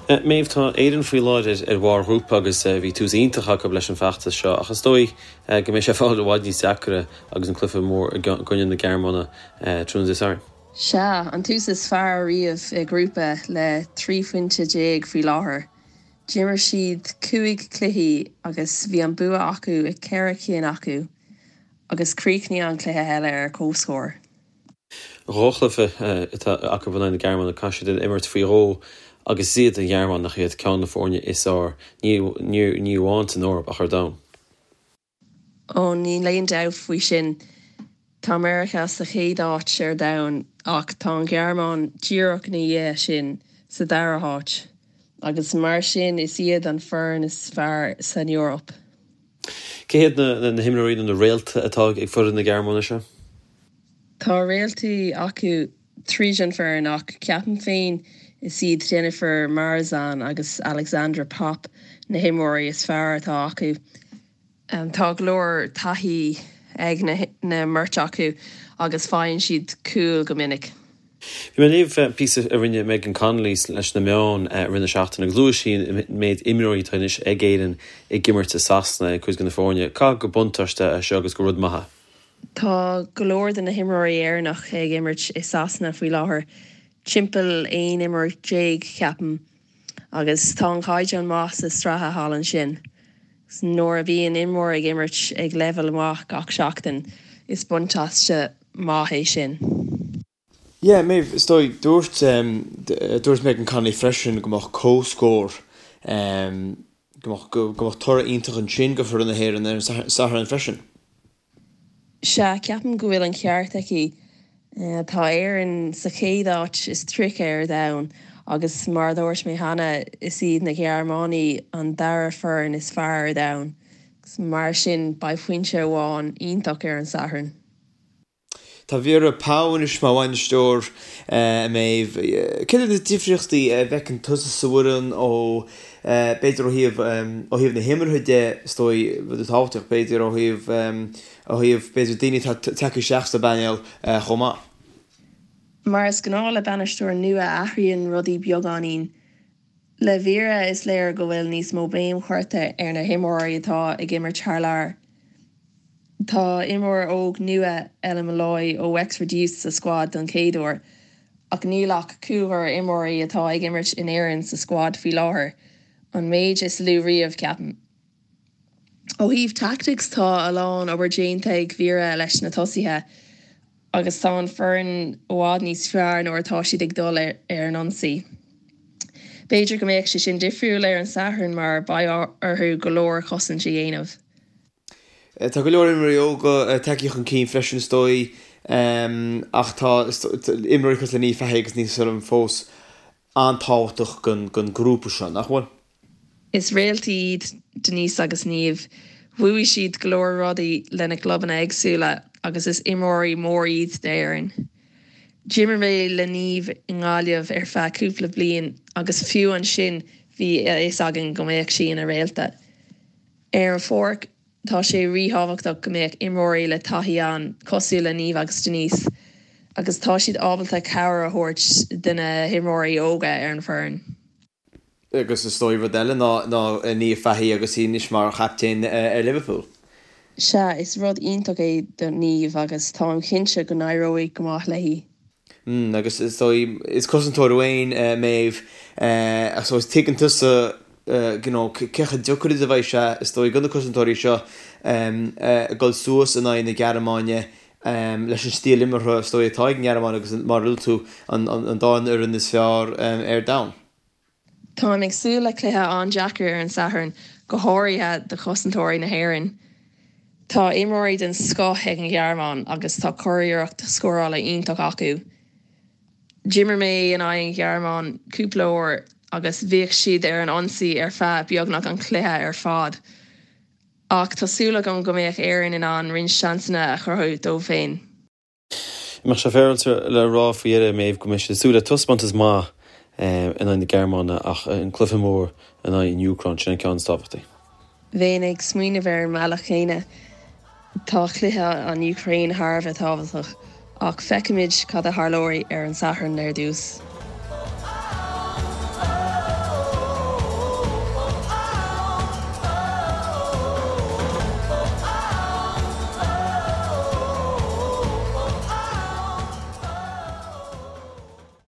Méabh, tá Éirinn faoi láthair ar bharr ghrúpa agus bhí tús iontach acu leis an bhfeachtas seo ach is dóigh go mbeidh sé ag fáil i bhfad níos deacra agus an cluiche mór i gcoinne na Gearmáine tráthnóna Dé Sathairn. Sea, an tús is fearr riamh i ngrúpa le 13 phointe faoi láthair. D'imir siad 5 cluichí agus bhí an bua acu i 4 cinn acu agus chríochnaigh an cluiche eile ar comhscór. Dhá chluiche atá acu in aghaidh na Gearmáine, caithfidh siad imirt faoi dhó agus is iad an Ghearmáin nach iad ceann de na foirne is fearr, ní amháin san Eoraip ach ar domhan. Ó, níl aon dabht faoi sin. Tá Meiriceá sa chéad áit ar domhan ach tá an Ghearmáin díreach ina dhiaidh sin sa dara háit agus mar sin is iad an foireann is fearr san Eoraip. Cé hiad na himreoirí nó na réalta atá ag foireann na Gearmáine seo? Tá réaltaí acu tríd an foireann ach ceapaim féin is iad Dzsenifer Marozsán agus Alexandra Popp na himreoirí is fearr atá acu. Tá go leor taithí ag na mbeirt acu agus faigheann siad cúil go minic. Bhí mé ag léamh píosa a rinne Megan Connolly leis na meáin i rith na seachtaine agus luaigh sí an méid imreoirí atá anois ag Éirinn ag imirt i Sasana ag cuid de na foirne. Caithfidh gur buntáiste é seo agus gur rud maith é. Tá go leor de na himreoirí Éireannach ag imirt i Sasana faoi láthair, timpeall 11 imreoir, ceapaim. Agus tá an caighdeán maith sa sraithe thall ansin. Nuair a bhíonn imreoir ag imirt ag leibhéal maith gach seachtain, is buntáiste maith é sin. Yeah, Méabh, is dóigh, dúirt, dúirt Megan Connolly freisin go mbeadh comhscór, go mbeadh, go mbeadh toradh iontach ansin go foireann na hÉireann ar an Satharn freisin. Sea, ceapaim go bhfuil an ceart aici. Tá Éirinn sa chéad áit is 30 ar domhan agus mar a dúirt mé cheana, is iad na Gearmánaigh an dara foireann is fearr ar domhan. Mar sin, beidh pointe amháin iontach ar an Satharn. Tá Vera Pauw anois mar bhainisteoir, a Méabh. Céard iad na difríochtaí a bhfeiceann tusa sa bhfoireann ó, b'fhéidir ó thaobh, ó thaobh na himeartha de, is dóigh, rud tábhachtach, b'fhéidir ó thaobh, ó thaobh, b'fhéidir daoine atá tagtha isteach sa bpainéal chomh maith? Mar is gnáth le bainisteoir nua, athraíonn rudaí beagáinín. Le Vera, is léir go bhfuil níos mó béim curtha ar na himreoirí atá ag imirt thar lear. Tá imreoir óg nua, Ella Molloy ó Wexford Youths sa scuad don chéad uair, ach níl ach cúigear imreoirí atá ag imirt in Éirinn sa scuad faoi láthair, an méid is lú riamh, ceapaim. Ó thaobh tactics, tá a lán obair déanta ag Vera leis na tosaithe agus tá an foireann i bhfad níos fearr nuair atá siad ag dul ar an ionsaí. B'fhéidir go mbeadh sé sin difriúil ar an Satharn mar beidh orthu go leor cosaint a dhéanamh. Tá go leor imreoirí óga tagtha chun cinn freisin is dóigh ach tá imreoirí cosúil le Niamh Fahey agus Denise O'Sullivan fós an-tábhachtach don ghrúpa seo, nach bhfuil? Is réaltaí iad Denise agus Niamh. Bhuaigh siad go leor rudaí lena gclubanna éagsúla agus is imreoirí mór iad d'Éirinn. D'imir mé le Niamh i nGaillimh ar feadh cúpla bliain agus fiú ansin bhí a fhios againn go mbeadh sí ina réalta. Ar an pháirc, tá sé ríthábhachtach go mbeadh imreoirí le taithí ann, cosúil le Niamh agus Denise, agus tá siad ábalta cabhair a thabhairt do na himreoirí óga ar an bhfoireann. Agus is dóigh rud eile ná Niamh Fahey agus í anois mar chaptaen ar Liverpool. Sea, is rud iontach é do Niamh agus táim cinnte go n-éireoidh go maith léi. Mm, agus is dóigh, is cosantóir thú féin, Méabh, ach so tuigeann tusa, you know, cé chomh deacair is a bheidh sé, is dóigh, do na cosantóirí seo dul suas in aghaidh na Gearmáine leis an stíl imeartha, is dóigh, atá ag an nGearmáin agus mar a luaigh tú, an dá fhoireann is fearr ar domhan. Táim ag súil le cluiche an-deacair ar an Satharn, go háirithe do chosantóirí na hÉireann. Tá imreoirí den scoth ag an Ghearmáin agus tá curiarracht scórála iontach acu. D'imir mé in aghaidh an Ghearmáin cúpla uair agus bhíodh siad ar an ionsaí ar feadh beagnach an chluiche ar fad. Ach tá súil agam go mbeadh Éirinn in ann roinnt seansanna a chruthú dóibh féin. Mbeadh sé féaráilte le rá faoi dheireadh, Méabh, go mbeidh siad ag súil le taispeántas maith in aghaidh na Gearmáine ach an cluiche mór in aghaidh an Úcráin, sin an ceann is tábhachtaí. Bheinn ag smaoineamh ar an mbealach chéanna. Tá cluiche an Úcráin thar a bheith tábhachtach ach feicfimid cad a tharlóidh ar an Satharn ar dtús.